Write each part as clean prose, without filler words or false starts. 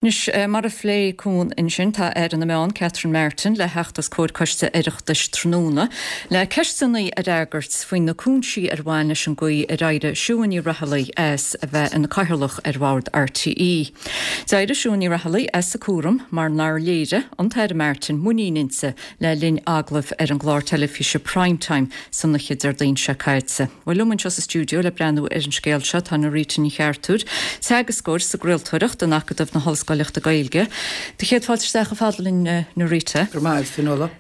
Anois, mar a phléigh Cuan ansin, tá Aire na Meán, Catherine Martin, le theacht os comhair Coiste Oireachtais tráthnóna le ceisteanna a fhreagairt faoi na cúinsí ar bhain leis an gcaoi ar éirigh Siún Ní Raghallaigh as a bheith ina Cathaoirleach ar Bhord RTÉ. D'éirigh Siún Ní Raghallaigh as a cúram mar nár léirigh an tAire Martin muinín inti le linn agallaimh ar an gclár teilifíse Prime Time san oíche Déardaoin seo caite. Bhuel, liom anseo sa stiúideo le breathnú ar an scéal seo tá Norita Ní Cheartúir, teagascóir sa gcraoltóireacht in Acadamh na hOllscoileachta Gaeilge. Do chéad fáilte isteach chomh fada linn, Norita. Go raibh maith agat, Fionnuala.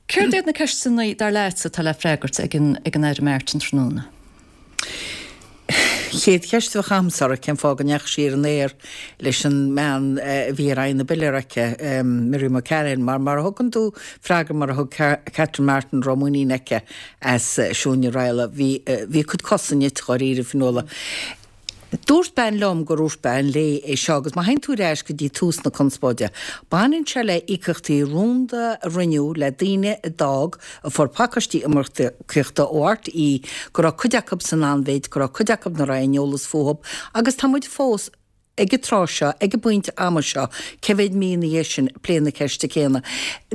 Céard iad na ceisteanna, dar leatsa, atá le freagairt ag an Aire Martin tráthnóna? Chéad cheist a bheadh agamsa uirthi, cén fáth go ndeachaigh sí ar an aer leis an mbean a bhí ar aghaidh na bpiléar aici, Miriam O'Callaghan, mar mar a thugann tú freagra mar a thug Catherine Martin a raibh muinín aici as Siún Ní Raghallaigh, bhí bhí a cuid cosa nite dháiríre, Fionnuala. Dúirt bean liom gur dhúirt bean léi é seo agus má théann tú ar ais go dtí tús na conspóide, baineann sé le íocaíochtaí rúnda a rinneadh le daoine a d'fhág, a fuair pacáistí iomarcaíochta ó RTÉ, go raibh cuid acu san anmhéid, go raibh cuid acu nach raibh aon eolas fúthu agus tá muid fós ag an tráth seo, ag an bpointe ama seo, cé mhéad mí ina dhiaidh sin, ag plé na ceiste céanna.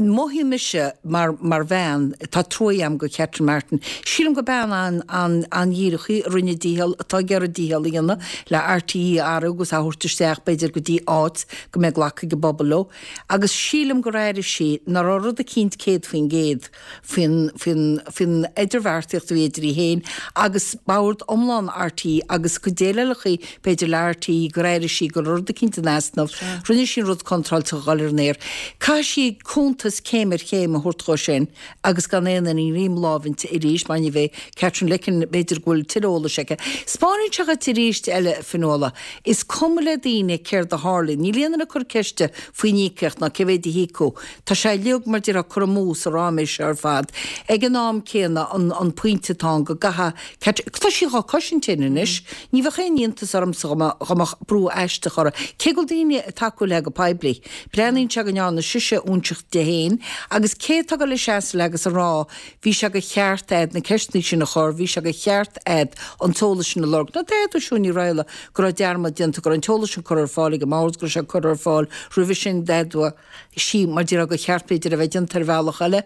Mothaíonn mise, mar, mar bhean, tá trua agam do Catherine Martin. Sílim gur bean an, an, an-dhíreach í, a rinne a dícheall, atá ag iarraidh a dícheall a dhéanamh le RTÉ a athrú agus a thabhairt isteach, b'fhéidir, go dtí áit go mbeidh glacadh ag an bpobal leo. Agus sílim gur airigh sí nach raibh rud eicínt 100%, faoin, faoin, faoin idirbheartaíocht a bhí idir í féin agus bord iomlán RTÉ agus a cuid déileálacha, b'fhéidir, le RTÉ, gur airigh sí go raibh rud eicínt in easnamh. Rinne sí an rud contráilte a dhul ar an aer. Caithfidh sí cuntas céim ar chéim a thabhairt dhó sin agus gan aon fhuinneamh greim láimhe inti arís mar ní bheidh Katherine Licken, b'fhéidir go bhfuil tuilleadh eolais aici. Spáineann sé dhuit arís eile, Fionnuala, is cuma le daoine céard a tharlaíonn. Níl aon duine ag cur ceiste faoin íocaíocht ná cé mhéid a híocadh. Tá sé uilig, mar déarfá, curtha amú sa ráiméis seo ar fad. Ag an am céanna, an pointe atá ann go gcaithfidh Catherine, tá sí dhá cosaint féin anois, ní bheadh aon iontas ormsa dá mbeadh brú aisteach uirthi, cé go bhfuil daoine ag tacú léi go poiblí. Breathnaíonn sé go ndearna sise óinseach di féin agus cé atá ag dul a seasamh léi agus a rá bhí sé de cheart a'd na ceisteanna sin a chur, bhí sé de cheart a'd an t-eolas sin a lorg. Nó d'fhéadfadh Siún Ní Raghallaigh go raibh dearmad déanta, go raibh an t-eolas sin curtha ar fáil ag an mbord, go raibh sé curtha ar fáil roimhe sin, d'fhéadfadh. sí, mar déarfá, gur cheart, b'fhéidir, a bheith déanta ar bhealach eile.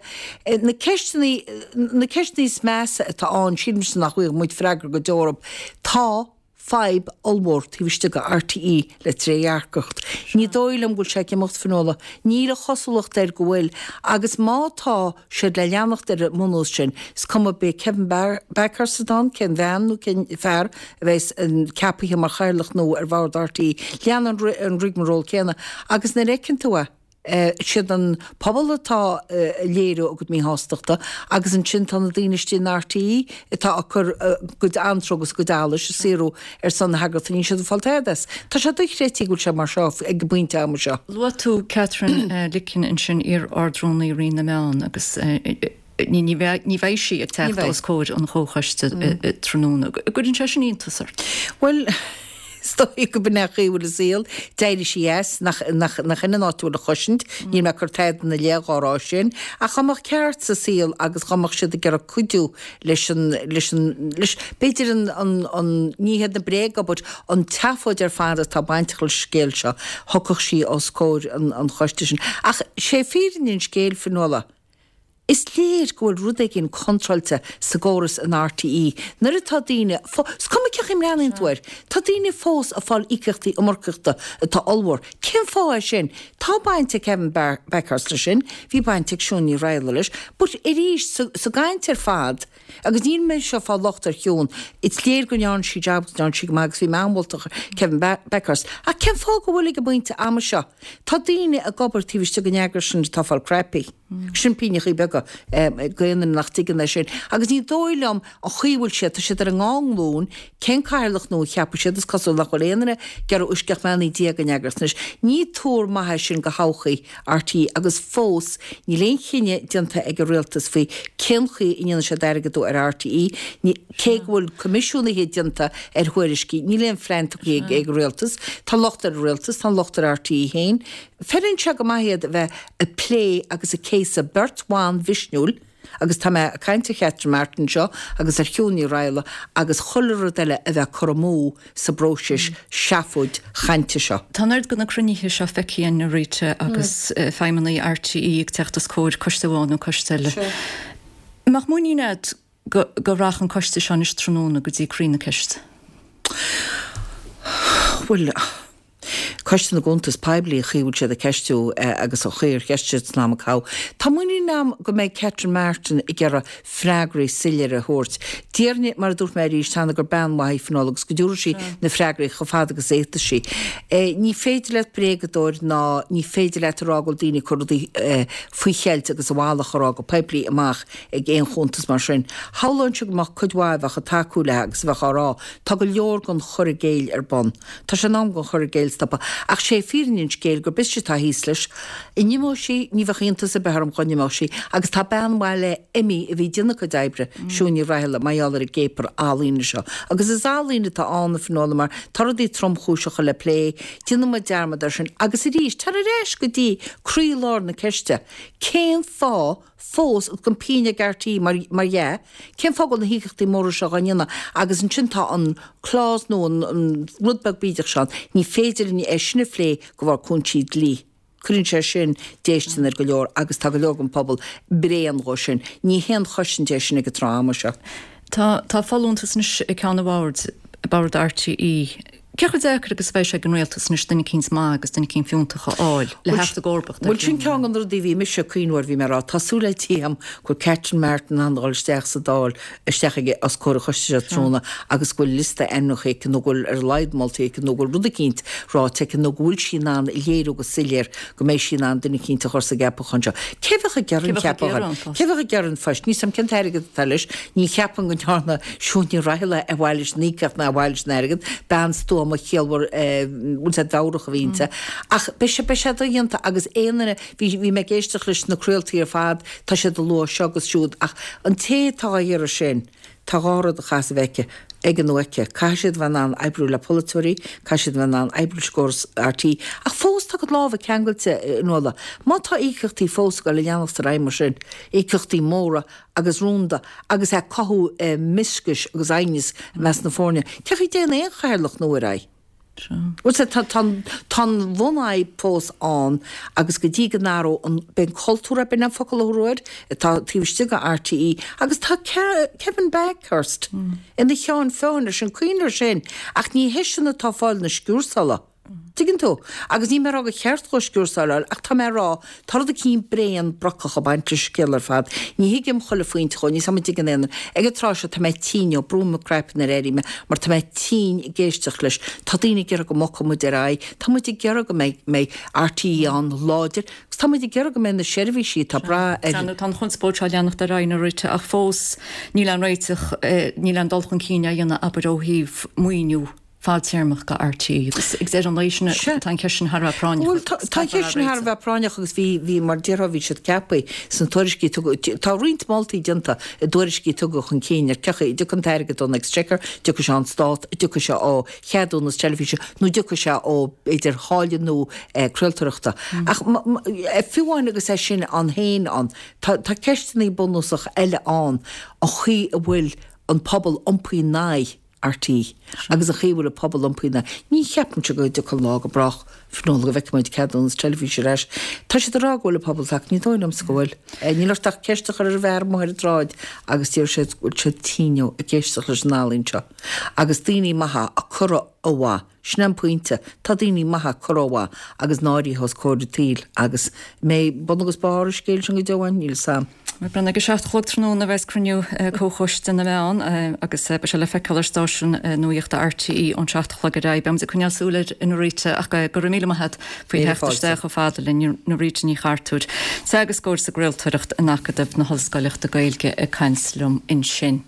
Na ceisteanna, na ceisteanna is measa atá ann, sílimse nach bhfaighidh muid freagra go deo orthu. Tá fadhb ollmhór taobh istigh de RTÉ le trédhearcacht. Ní dóigh liom go bhfuil sé ag imeacht, Fionnuala. Níl an chosúlacht air go bhfuil. Agus má tá siad le leanacht ar an mbunús sin, is cuma b'é Kevin Bakhurst atá ann, cén bhean nó cén fear, a bheas ceapaithe mar chathaoirleach nua ar bhord RTÉ, leanann an rigmarole céanna agus nuair a fheiceann tú é, siad an pobal atá ag léiriú a gcuid míshástachta agus ansin tá na daoine istigh in RTÉ atá ag cur a gcuid antró agus a gcuid allais ag saothrú ar son na heagraíochta, níl siad ag fáil tada as. Tá sé dochreidte go bhfuil sé mar seo ag an bpointe ama seo. Luaigh tú Katherine Licken ansin, iar-Ard-Rúnaí Roinn na Meán agus Ní bheidh sí ag teacht os comhair an chomhchoiste tráthnóna. An gcuireann sé sin iontas ort? Bhuel, is dóigh go b'in é an chaoi a bhfuil an saol. D'éirigh sí as, nach in an áit a bhfuil a chosaint. Níl mé ag cur tada ina leith dhá rá sin. Ach dá mbeadh ceart sa saol agus dá mbeadh siad ag iarraidh cuidiú leis an, leis an, leis, b'fhéidir an, an, an, ní hiad na bréaga but an tseafóid ar fad atá bainteach leis an scéal seo, thiocfadh sí os comhair an, an choiste sin. Ach sé fírinne an scéil, Fionnuala. Is léir go bhfuil rud éigin contráilte sa gcóras in RTÉ nuair atá daoine, is cuma cén chaoi a mbreathnaíonn tú air, tá daoine fós ag fáil íocaíochtaí iomarcaíochta atá ollmhór. Cén fáth é sin? Tá baint ag Kevin Bakhurst leis sin, bhí baint ag Siún Ní Raghallaigh leis, but arís, sa gcaint ar fad, agus níl mise ag fáil locht ar Shiún, is léir go ndearna sí jab agus go ndearna sí go maith agus bhí mé an-mholtach ar Kevin Bakhurst, ach cén fáth go bhfuil ag an bpointe ama seo, tá daoine ag obair taobh istigh den eagras sin atá ag fáil cnaipí. Sin pingneachaí beaga d'aon duine nach dtuigeann é sin. Agus ní dóigh liom an chaoi a bhfuil siad, tá siad ar a ndá nglúin, cén cathaoirleach nua a cheapfaidh siad, is cosúil nach bhfuil aon duine ag iarraidh uisce ach mbeannaí Dia den eagras anois. Ní tuar maith é sin do thodhchaí RTÉ agus fós níl aon chinneadh déanta ag an rialtas faoi cén chaoi a ndéanfaidh siad airgeadú ar RTÉ, cé go bhfuil coimisiúnaithe déanta ar thuairiscí, níl aon phlean tugtha ag an rialtas. Tá locht ar an rialtas, tá an locht ar RTÉ féin. Feileann sé go maith iad a bheith ag plé agus ag céasadh beirt bhan mhisniúil. Agus tá mé ag caint ar Chatherine Martin anseo agus ar Shiún Ní Raghallaigh agus chuile rud eile a bheith curtha amú sa bpróiseas seafóid chainte seo. Tá an oiread de na cruinnithe seo feicthe againn, a Rita, agus feidhmeannaigh RTÉ ag teacht os comhair coiste amháin nó coiste eile. An mbeadh muinín agat go go rachadh an coiste seo anois tráthnóna go dtí croí na ceiste? Bhuel, Coiste na gCuntas Poiblí, an chaoi a bhfuil siad ag ceistiú agus an chaoi ar cheistigh siad san am a caitheadh. Tá muinín agam go mbeidh Catherine Martin ag iarraidh freagraí soiléire a thabhairt. Déarfainn, mar a dúirt mé arís cheana, gur bean mhaith í Fionnuala agus go dtabharfaidh sí na freagraí chomh fada agus a fhéadfas sí. Ní féidir leat bréagadóir ná ní féidir leat a rá go bhfuil daoine ag cur rudaí faoi cheilt agus a mhalairt a rá go poiblí amach ag aon chuntas mar sin. Shamhlóinnse go mbeadh cuid mhaith a bheadh ag tacú léi agus a bheadh á rá, tá go leor den chur i gcéill ar bun. Tá sé in am don chur i gcéill stopadh. Ach sé fírinne an scéil gurb ise atá thíos leis. An n-imeoidh sí? Ní bheadh iontas ar bith orm dhá n-imeodh sí. Agus tá bean mhaith léi imithe a bhí ag déanamh a cuid oibre, Siún Ní Raghallaigh, mar gheall ar an gcéapar ealaíne seo. Agus is ealaín atá ann, a Fhionnuala, mar tá rudaí tromchúiseacha le plé. Déanann muid dearmad air sin. Agus arís, tar ar ais go dtí croílár na ceiste, cén fáth fós agus gan pingin ag RTÉ mar mar dhea, cén fáth go bhfuil na híocaíochtaí móra seo dhá ndéanamh agus ansin tá an clause nó an an rud beag bídeach seo ann, ní féidir linn é sin a phlé de bharr cúinsí dlí. Cuireann sé sin déistin ar go leor agus tá go leor den phobal bréan dhó sin. Ní haon chosaint é sin ag an tráth ama seo. Tá tá folúntas anois ag ceann an bhoird, bord RTÉ. Cé chomh deacair agus a bheidh sé ag an rialtas anois duine eicínt maith agus duine eicínt fiúntach a fháil le theacht i gcomharbacht ar Bhuel, sin ceann de na rudaí a bhí mise ag cuimhneamh air, bhí mé ag rá, tá súil le Dia agam go bhfuil Catherine Martin in ann a dhul isteach sa Dáil, isteach ag, os comhair an choiste seo tráthnóna agus go bhfuil liosta ainmneacha aici nó go bhfuil ar a laghad moltaí aici nó go bhfuil rud eicínt ráite aici nó go bhfuil sí in ann a léiriú go soiléir go mbeidh sí in ann duine eicínt a chur sa gceapachán seo. Cé bheadh ag iarraidh an ceapachán? Cé bheadh ag iarraidh an phoist? Níl 's a'm cén t-airgead atá leis. Ní cheapaim go ndearna Siún Ní Raghallaigh ar mhaithe leis an íocaíocht ná ar mhaithe leis an airgead. Bean stuama chiallmhar bhfuil 's a'd mheabhrach a bhí inti. Ach beidh sé beidh sé dodhéanta agus aon duine bhí bhí mé ag éisteacht leis na craoltaí ar fad tá siad ag lua seo agus siúd ach an té atá á iarraidh sin Tá dhá rud a chaithfeas a bheith aici, aige nó aici. Caithfidh siad a bheith in ann oibriú le polaiteoirí, caithfidh siad a bheith in ann oibriú leis an gcóras RTÉ. Ach fós tá a gcuid lámha ceangailte, a Fhionnuala. Má tá íocaíochtaí fós ag dul a leanacht ar aghaidh mar sin, íocaíochtaí móra agus rúnda agus ag cothú mioscais agus aighneas i measc na foirne, cén chaoi a dtéann aon chathaoirleach nua ar aghaidh? Bhuel, sea, tá, tá, tá an bhunfhadhb fós ann agus go dtí go n-athróidh an, b'é an cultúr ab in an focal a thabharfá air, atá taobh istigh de RTÉ agus tá Kevin Bakhurst ina cheann feadhain air sin, cuimhnigh air sin, ach ní heisean atá ag fáil na sciúrsála. Tuigeann tú? Agus níl mé ag rá gur cheart dhó sciúrsáil a fháil ach tá mé ag rá, tá rud eicínt bréan brocach ag baint leis an scéal ar fad. Ní thuigim chuile phointe dhó, níl 's a'm an dtuigeann aon duine. Ag an tráth seo tá mé tinn ó, brúim mo craiceann nuair a éirím mar tá mé tinn ag éisteacht leis. Tá daoine ag iarraidh go mbogfadh muid ar aghaidh, tá muid ag iarraidh go mbeidh, mbeidh RTÉ ann láidir agus tá muid ag iarraidh go mbeidh na seirbhísí atá ag brath ar. Tá an chonspóid seo ag leanacht ar aghaidh a Rita ach fós níl aon réiteach, níl aon dul chun cinn á dhéanamh abair ó thaobh maoiniú. fadtéarmach do RTÉ agus ag deireadh an lae sin tá an cheist sin thar a bheith práinneach. Bhuel tá an cheist sin thar a bheith práinneach agus bhí, bhí mar déarfá bhí siad ceaptha sna tuairiscí a tugadh, tá roinnt moltaí déanta i dtuairiscí a tugadh chun cinn ar cén chaoi a dtiocfaidh an t-airgead ón Exchequer, dtiocfaidh sé ón Stát, dtiocfaidh sé ó cheadúnas teilifíse nó dtiocfaidh sé ó b'fhéidir tháille nua craoltóireachta. Ach fiú amháin agus é sin ann féin ann, tá, tá ceisteanna bunúsacha eile ann, an chaoi a bhfuil an pobal iompaithe in aghaidh RTÉ agus an chaoi a bhfuil an pobal iompaithe ina aghaidh. Ní cheapaimse go dtiocfaidh an lá go brách, Fionnuala, go bhfeicfidh muid ceadúnas teilifíse ar ais. Tá siad ag rá go bhfuil an pobal tagtha, ní dóigh liomsa go bhfuil. Níl ort ach ceist a chur ar an bhfear amuigh ar an tsráid agus déarfaidh siad go bhfuil siad tinn ag éisteacht leis an ealaín seo. Agus daoine maithe á cur ó mhaith. Sin é an pointe, tá daoine maithe curtha ó mhaith agus náirithe os comhair an tsaoil agus an mbeidh bun agus barr an scéil sin go deo ann, níl 'fhios a'm. Ag a 7 a chlog tráthnóna a bheas cruinniú Comhchoiste na Meán agus beidh sé le feiceáil ar stáisiún nuachta RTÉ ón 7 a chlog ar aghaidh. Beidh muid ag coinneáil súil air a Norita ach go raibh míle maith agat faoi theacht isteach chomh fada linn, Norita Ní Chartúir, teagascóir sa gcraoltóireacht in Acadamh na hOllscoileachta Gaeilge ag caint liom ansin.